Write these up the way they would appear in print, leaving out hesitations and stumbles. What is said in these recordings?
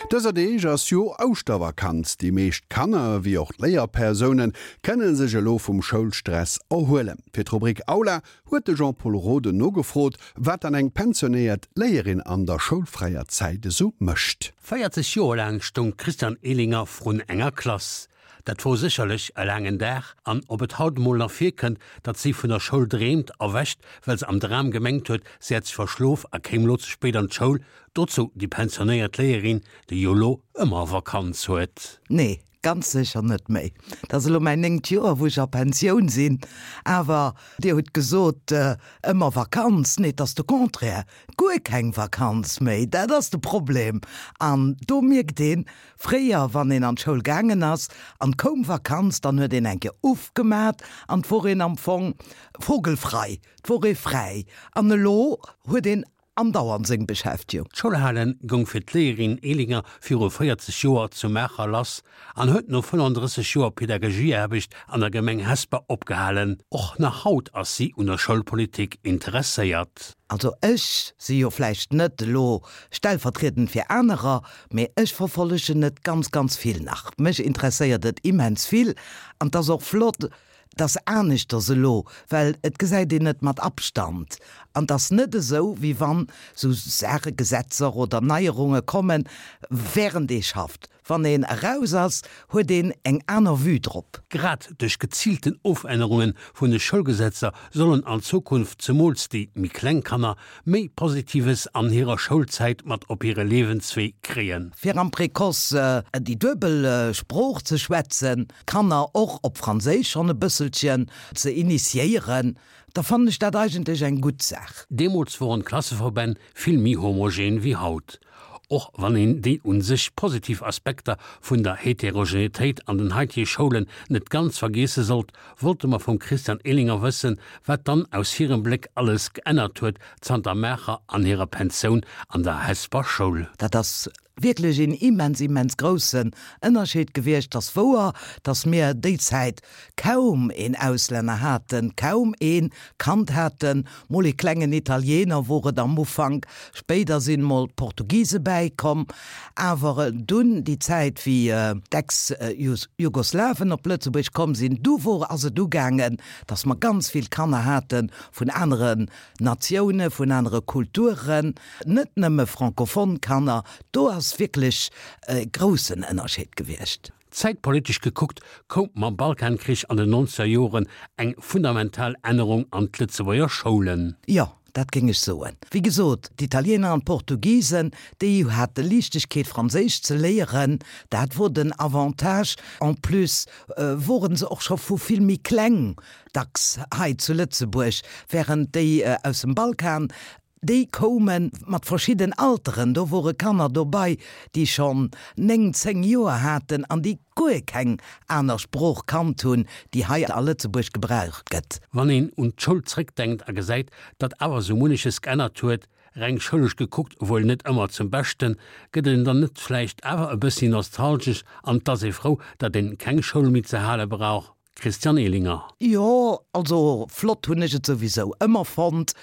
Dëser Deeg ass jo Ouschtervakanz. Déi meescht Kanner, wéi och d'Léierpersounen, kënne sech elo vum Schoulstress erhuelen. Fir d'Rubrik Aula huet de Jean-Pol Roden nogefrot, wat dann eng pensionéiert Léierin an der schoulfräier Zäit esou mécht. 40 Joer laang stoung d'Christiane Ehlinger vrun enger Klass. Dat wor sécherlech e laangen Dag, an ob et haut emol nach virkënnt, datt si vun der Schoul dreemt, erwächt, well se am Dram gemengt huet, si hätt sech verschlof a kéim lo ze spéit an d'Schoul, dozou déi pensionéiert Léierin, déi jo lo ëmmer Vakanz huet. Nee, ganz sécher net méi. Dat ass elo mäin néngt Joer, wou ech a Pensioun sinn. Awer Dir hutt gesot, ëmmer Vakanz. Nee, et ass de Contraire, guer keng Vakanz méi. Dat ass de Problem. An do mierkt een, Fréier, wann een an d'Schoul gaangen ass an 't koum Vakanz, dann huet een eng Kéier uff gemat an 't wor een am Fong vogelfrei, 't wor ee fräi. An elo huet een andauernd seng Beschäftigung. D'Schoulhale goung fir d'Léierin Ehlinger viru 40 Joer zu Maacher lass an huet no 35 Joer Pädagogieaarbecht an der Gemeng Hesper opgehalen. Och nach haut ass si un der Schoulpolitik interesséiert. Also ech si jo vläicht net elo stellvertriedend fir anerer, Mee ech verfollegen et ganz, ganz vill nach. Mech interesséiert et immens vill an 't ass och flott, 't ass aneschters elo, well et gesäit een et mat Abstand an 't ass net esou, wéi wann esou Saache, Gesetzer oder Neierunge kommen, während ee schafft. Wann een eraus ass, huet een eng aner Vue drop. Grad duerch geziilten Ofännerunge vun de Schoulgesetzer sollen an Zukunft zemools déi méi kleng Kanner méi Positives an hirer Schoulzäit mat op hire Liewenswee kréien. Fir am Précoce déi duebel Sprooch ze schwätzen, d'Kanner och op Franséisch schonn e bësselchen ze initiéieren, da fannen ech dat eigentlech eng gutt Saach. Deemools woren d'Klasseverbänn vill méi homogen wéi haut. Och wann een déi un sech positiv Aspekter vun der Heterogenetéit an den haitige Schoulen net ganz vergiesse sollt, wollte mer vum Christian Ehlinger wëssen, wat dann aus hirem Bléck alles geännert huet zanter Maacher an hirer Pensioun an der Hesper Schoul. Dat ass wierklech een immens, immens groussen Ënnerscheed gewiescht. 't ass wouer, datt mir déi Zäit kaum een Auslänner haten, kaum ee Kand haten, mol ee klengen Italiener wor et am Ufank, spéider sinn mol d'Portugise bäikomm, awer dunn déi Zäit wéi d'Ex-Jugoslawen op Lëtzebuerg komm sinn, du wor ass et ugaangen, datt mer ganz vill Kanner hate vun aneren Natioune, vun anere Kulturen, net nëmme francophone Kanner, do ass wierklech e groussen Ënnerscheed gewiescht. Zäitpolitesch gekuckt koum mam Balkankrich an den nonzeger Joren eng fundamental Ännerung an d'Lëtzebuerger Schoulen. Jo, dat géing ech soen. Wéi gesot, d'Italiener an d'Portugisen, déi hate Liichtegkeet Franséisch ze léieren, dat wor den Avantage. En plus woren se och scho vu vill méi kleng dacks hei zu Lëtzebuerg, während déi aus dem Balkan, Déi koume mat verschidden Alteren. Do wore Kanner dobei, déi schonn 9, 10 Joer haten an déi guer keng aner Sprooch kannt hunn, déi hei a Lëtzebuerg gebraucht gëtt. Wann een un d'Schoul zréckdenkt a gesäit, datt awer sou munneches geännert huet, reng schoulesch gekuckt wuel net ëmmer zum Beschten, gëtt een dann net vläicht awer e bëssi nostalgesch an 't ass ee frou, datt een keng Schoul méi ze hale brauch? Christian Ehlinger. Jo, also flott hunn ech et souwisou ëmmer fonnt,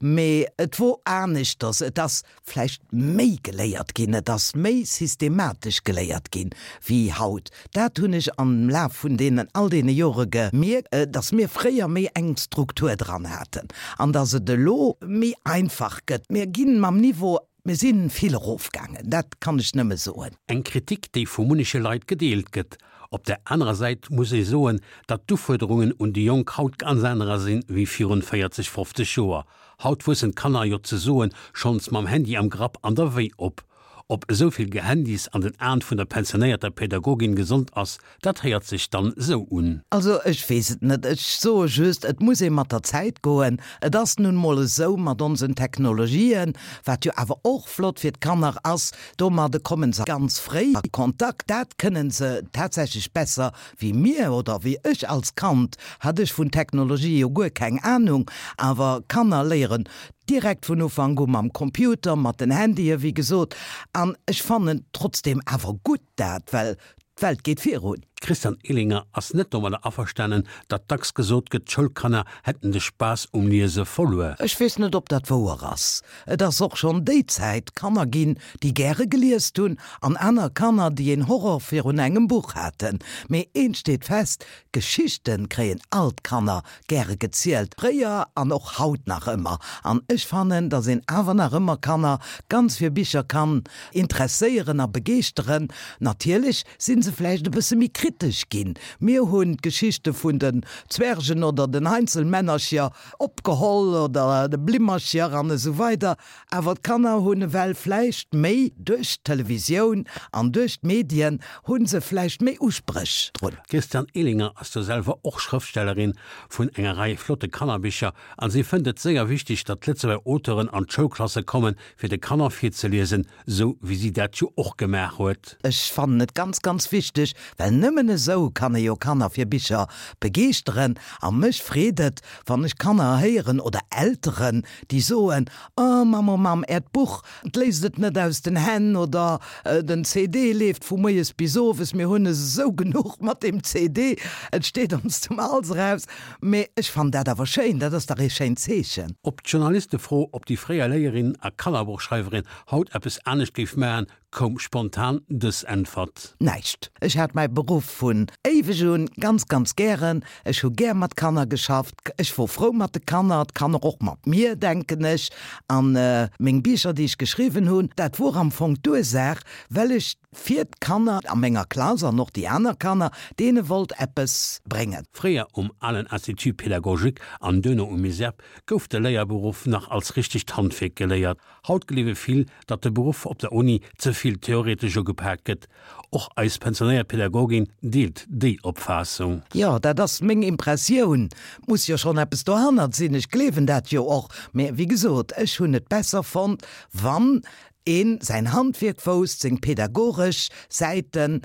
mee et wor aneschters, et ass vläicht méi geléiert ginn, et ass méi systematesch geléiert ginn wéi haut. Dat hunn ech am Laf vun deenen all deene Jore gemierkt, dass mir fréier méi eng Struktur dran haten an dass et elo méi einfach gëtt. Mir ginn mam Niveau Mir si vill erofgaangen, dat kann ech nëmme soen. Eng Kritik, déi vu munneche Leit gedeelt gëtt. Op der anerer Säit muss ee soen, datt d'Ufuerderungen un déi Jonk haut ganz anerer sinn, wéi virun 40, 50 Joer. Haut wuessen d'Kanner jo ze soen schonns mam Handy am Grapp an der Wéi op. Ob esou vill Gehandys an den Aen vun der pensionéierter Pädagogin gesond ass, Dat héiert sech dann sou un. Also ech weess et net. Ech soe just, et muss ee mat der Zäit goen. Et ass nun emol esou mat onsen Technologien, wat jo awer och flott fir d'Kanner ass, domadde kommen se ganz fréi a Kontakt. Dat kënnen se tatsächlech besser wéi mir oder wéi ech. Als Kand hat ech vun Technologie jo guer keng Anung, awer Kanner léieren direkt vun Ufank u mam Computer, mat den Handye wéi gesot. An ech fannen trotzdem awer gutt dat, well D'Welt geet virun. D'Christiane Ehlinger ass net domadder averstanen, datt dacks gesot gëtt, d'Schoulkanner hätten de Spaass um Liese verluer. Ech weess net, ob dat wouer ass. Et ass och schonn déi Zäit Kanner ginn, déi gäre geliest hunn, an aner Kanner, déi een Horror virun engem Buch haten. Mee eent steet fest, Geschichten kréien all d'Kanner gäre gezielt, fréier an och haut nach ëmmer. An ech fannen, dass een awer nach ëmmer Kanner ganz fir Bicher kann interesséieren a begeeschteren. Natierlech sinn se vläicht e bësse méi kritesch ginn. Mir hunn d'Geschichte vun den Zwergen oder den Heinzelmännercher opgeholl oder de Blimmercher an esou weider Awer d'Kanner hunn ewell vläicht méi duerch d'Televisioun an duerch d'Medien hu se vläicht méi Uspréch drun. D'Christiane Ehlinger ass jo selwer och Schrëftstellerin vun enger Rei flotte Kannerbicher an si fënnt et séier wichteg, datt Lëtzebuerger Auteuren an d'Schoulklasse kommen, fir de Kanner virzeliesen, sou wéi si dat jo och gemaach huet. Ech fannen et ganz, ganz wichteg, well nëmmen esou kann ee jo Kanner fir Bicher begeeschteren. A mech freet et, wann ech Kanner héieren oder Elteren, déi soen, Oh Mamm, oh Mamm, äert Buch, 't léisst et net aus den Hänn oder den CD leeft vu moies bis owes, mir hunn esou genuch mat deem CD, et steet ons zum Hals eraus. Mee ech fannen dat awer schéin, dat ass dach ee schéint Zeechen. Op d'Journalistefro, ob déi fréier Léierin a Kannerbuchschreiwerin haut eppes anescht géif maachen, koum spontan dës Äntwert. Näischt. Ech hat mäi Beruff vun éiweg un ganz, ganz gären. Ech hu gär mat Kanner geschafft. Ech wor frou mat de Kanner, d'Kanner och mat mir, denken ech. A meng Bicher, déi ech geschriwwen hunn, dat wor am Fong d'Ursaach, well ech fir d'Kanner a menger Klass an och déi aner Kanner, deene wollt eppes bréngen. Fréier um alen Institut pédagogique an duerno um ISERP gouf de Léierberuff nach als richtegt Handwierk geléiert. Haut gleewe vill, datt de Beruff op der Uni ze vill theoretesch ugepaakt gëtt. Och eis pensionéiert Pädagogin deelt déi Opfaassung. Jo, dat ass meng Impressioun. Muss jo schonn eppes dohannert sinn. Ech gleewen dat jo och. Mä wéi gesot, ech hunn et besser fonnt, wann een säin Handwierk wousst, seng pädagogesch Säiten,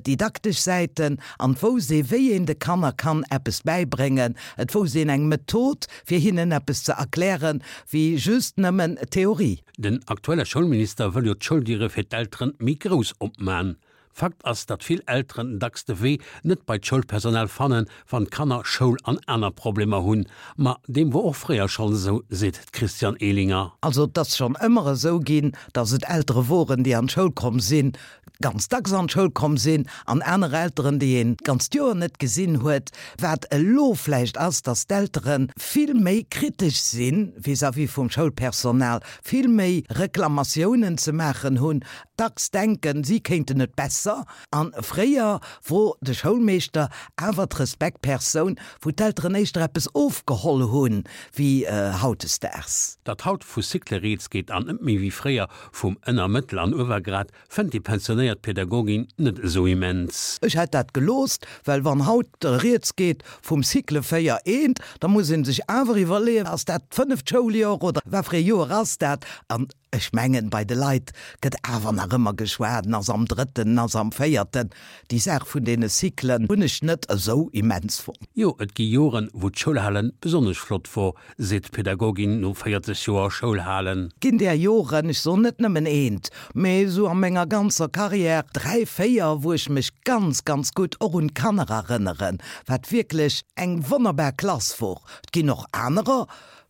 didaktesch Säiten, an et wousst ee wéi een de Kanner kann eppes bäibréngen, et wousst een eng Method fir hinnen eppes ze erklären, wéi just nëmmen Theorie. Den aktuelle Schoulminister wëll jo d'Schouldiere fir d'Elteren méi grouss opman. Fakt ass, datt vill Elteren dacks de Wee net bei d'Schoulpersonal fannen, wann d'Kanner Schoul an aner Problemer hunn. Ma deem wor och fréier schonn esou, seet d'Christiane Ehlinger. Also et ass schonn ëmmer esou ginn, datt et Eltere woren, déi an d'Schoul komm sinn, ganz dacks an d'Schoul komm sinn, an aner Elteren, déi een d'ganzt Joer net gesinn huet. Wat elo vläicht ass, datt d'Eltere vill méi kritesch si vis-à-vis vum Schoulpersonal, vill méi Reklamatiounen ze maachen hunn, dacks denken, si kéinten et besser. A fréier wor de Schoulmeeschter awer d'Respektpersoun, wou d'Elteren éischter eppes ofgeholl hunn, wéi hautdesdaags. Datt haut vu Cycle rieds geet an net méi wéi fréier vum Ënner-, Mëttel an Uewergrad, fënnt déi pensionéiert Pädagogin net esou immens. Ech hätt dat geloost, well wann haut rieds geet vum Cycle 4 eent, da muss ee sech awer iwwerleeën, ass dat d'fënneft Schouljoer oder wat fir ee Joer ass dat? An ech mengen, bei de Leit gëtt awer nach ëmmer geschwat, en ass am drëtten, en ass am véierten. Déi Saach vun deene Cyclen hunn ech net esou immens fonnt. Jo, et gi Joren, wou d'Schoulhalen besonnesch flott wor, seet d'Pädagogin no 40 Joer Schoulhalen. Ginn där Joren, ech soen net nëmmen eent, mee esou a menger ganzer Carrière dräi, véier, wou ech mech ganz, ganz gutt och un d'Kanner erënneren, wat wierklech eng wonnerbar Klass wor. Et ginn och anerer,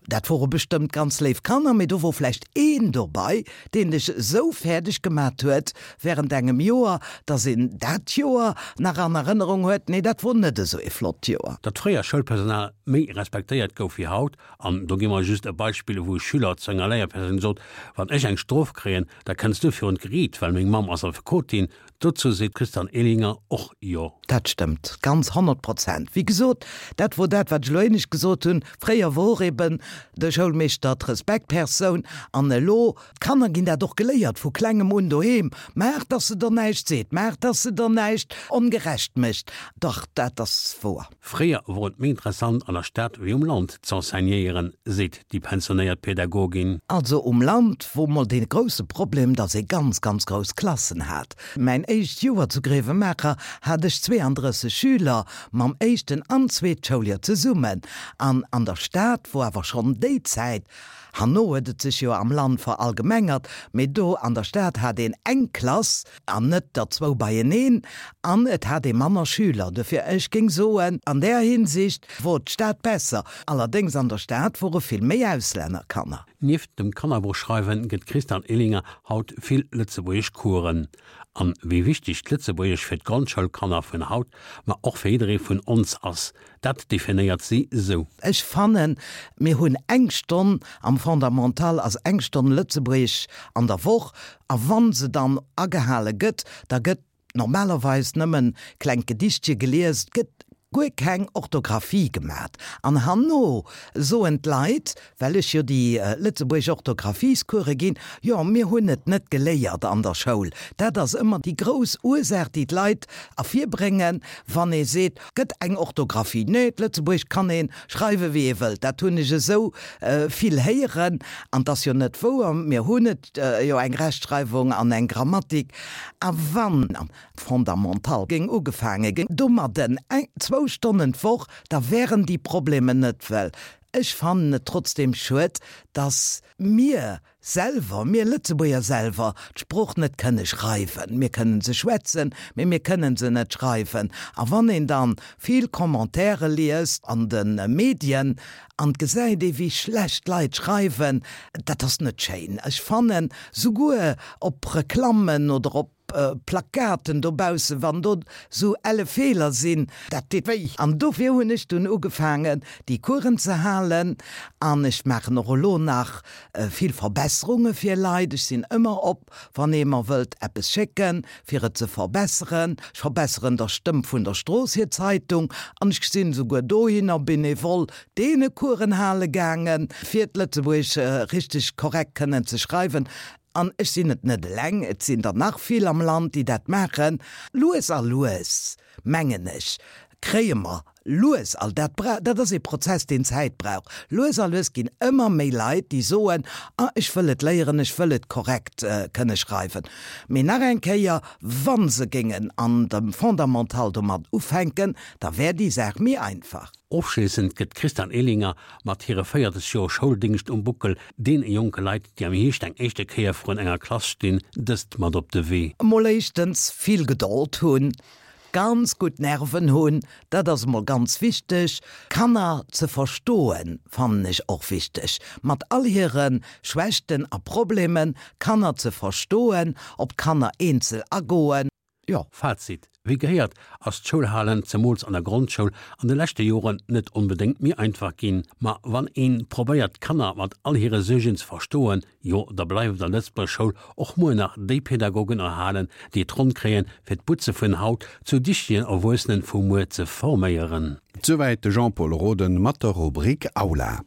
dat wore bestëmmt ganz léif Kanner, mee do wor vläicht een dobei, deen dech esou fäerdeg gemat huet während engem Joer, dass een dat Joer nach an Erënnerung huet, nee, dat wor net esou ee flott Joer. Datt fréier Schoulpersonal méi respektéiert gouf wéi haut, an do gi mer just e Beispill, wou e Schüler zu enger Léierpersoun sot, Wann ech eng Strof kréien, da kënns du virun d'Geriit, well meng Mamm ass Affekotin. Dozou seet d'Christiane Ehlinger och Jo. Dat stëmmt ganz, 100%. Wéi gesot, dat wor dat, wat ech elo éinescht gesot hunn, Fréier wor eben de Schoulmeeschter d'Respektpersoun an elo, d'Kanner ginn dat och geléiert vu klengem un doheem, maach dass se der näischt seet, maach dass se der näischt ongerecht mécht. Dach, dat ass wouer. Fréier wor et méi interessant an der Stad wéi um Land z'enseignéieren, seet déi pensionéiert Pädagogin. Also um Land wor mol dee grousse Problem, dass ee ganz, ganz grouss Klassen hat. Mäin éischt Joer zu Grevenmacher hat ech 32 Schüler mam éischten an zweet Schouljoer zesummen. An an der Stad wor awer schonn déi Zäit. Herno huet et sech jo am Land verallgemengert, mee do an der Stad hat een eng Klass an net der zwou beieneen an et hat ee manner Schüler. Dofir, ech géing soen, an där Hinsicht wor d'Stad besser. Allerdéngs an der Stad wore vill méi Auslännerkanner. Nieft dem Kannerbuchschreiwen gëtt d'Christiane Ehlinger haut vill lëtzebuergesch Coursen. An wéi wichteg d'Lëtzebuergesch fir d'Grondschoulkanner vun haut, ma och fir jidderee vun ons ass, dat definéiert si sou. Ech fannen, mir hunn eng Stonn am Fondamental ass eng Stonn Lëtzebuergesch an der Woch, a wa se dann agehale gëtt, da gëtt normalerweis nëmmen klengt Gedichtche gelies, et gëtt guer keng Orthographie gemat. An herno soen d'Leit, well ech jo déi lëtzebuergesch Orthographiescourse ginn, jo mir hunn et net geléiert an der Schoul. Dat ass ëmmer déi grouss Ursaach, déi d'Leit ervirbréngen, wann ee seet, gëtt eng Orthographie. Nee, d'Lëtzebuergesch kann ee schreiwe wéi ee wëllt. Dat hunn ech esou vill héieren. An 't ass jo net wouer, mir hunn et jo eng Rechtschreiwung an eng Grammatik. A wann am Fondamental géing ugefaange ginn domadden, eng, zwou Stonnen d'Woch, da wären déi Problemer net. Well ech fannen et trotzdem schued, dass mir selwer, mir Lëtzebuerger selwer, d'Sprooch net kënne schreiwen. Mir kënnen se schwätzen, mee mir kënnen se net schreiwen. A wann een dann vill Commentaire liest an de Medien an et gesäit ee wéi schlecht d'Leit schreiwen, dat ass net schéin. Ech fannen, souguer op Reklammen oder op Plakaten dobaussen, wann do sou elle Feeler sinn, dat deet wéi. An dofir hunn ech dunn ugefaangen, déi Coursen ze halen. An ech maachen och elo nach vill Verbesserunge fir Leit. Ech sinn ëmmer op, wann ee mer wëllt eppes schécken, fir et ze verbesseren. Ech verbesseren der Stëmm vun der Strooss hir Zeitung. An ech sinn esouguer dohinner bénévol deene Coursen hale gaangen, fir d'Lëtzebuergesch richteg korrekt kënnen ze schreiwen. An ech sinn et net eleng, et sinn der nach vill am Land, déi dat maachen. Lues a lues, mengen ech, kréie mer lues a, dat bra, dat ass ee Prozess, deen Zäit brauch, lues a lues ginn ëmmer méi Leit, déi soen, Ah, ech wëll et léieren, ech wëll et korrekt kënne schreiwen. Mee nach eng Kéier, wa se géingen an dem Fondamental domat ufänken, da wär déi Saach méi einfach. Ofschléissend gëtt d'Christiane Ehlinger mat hire 40 Joer Schouldéngscht um Buckel deene jonke Leit, déi am Hierscht eng éischte Kéier vrun enger Klass stinn, dëst mat op de Wee. Emol éischtens vill Gedold hunn, ganz gutt Nerven hunn, dat ass emol ganz wichteg. Kanner ze verstoen, fannen ech och wichteg, mat all hire Schwächten a Problemen, Kanner ze verstoen, op d'Kanner eenzel agoen. Jo. Fazit, Wéi gehéiert, ass d'Schoulhalen, zemools an der Grondschoul, an de leschte Joren net onbedéngt méi einfach ginn. Ma wann een probéiert d'Kanner mat all hire Suergen ze verstoen, jo da bleiwen der Lëtzebuerger Schoul och muer nach déi Pädagogen erhalen, déi et ronn kréien, fir d'Butze vun haut zu dichtegen Erwuessenen vu muer ze forméieren. Souwäit de Jean-Pol Roden mat der Rubrik Aula.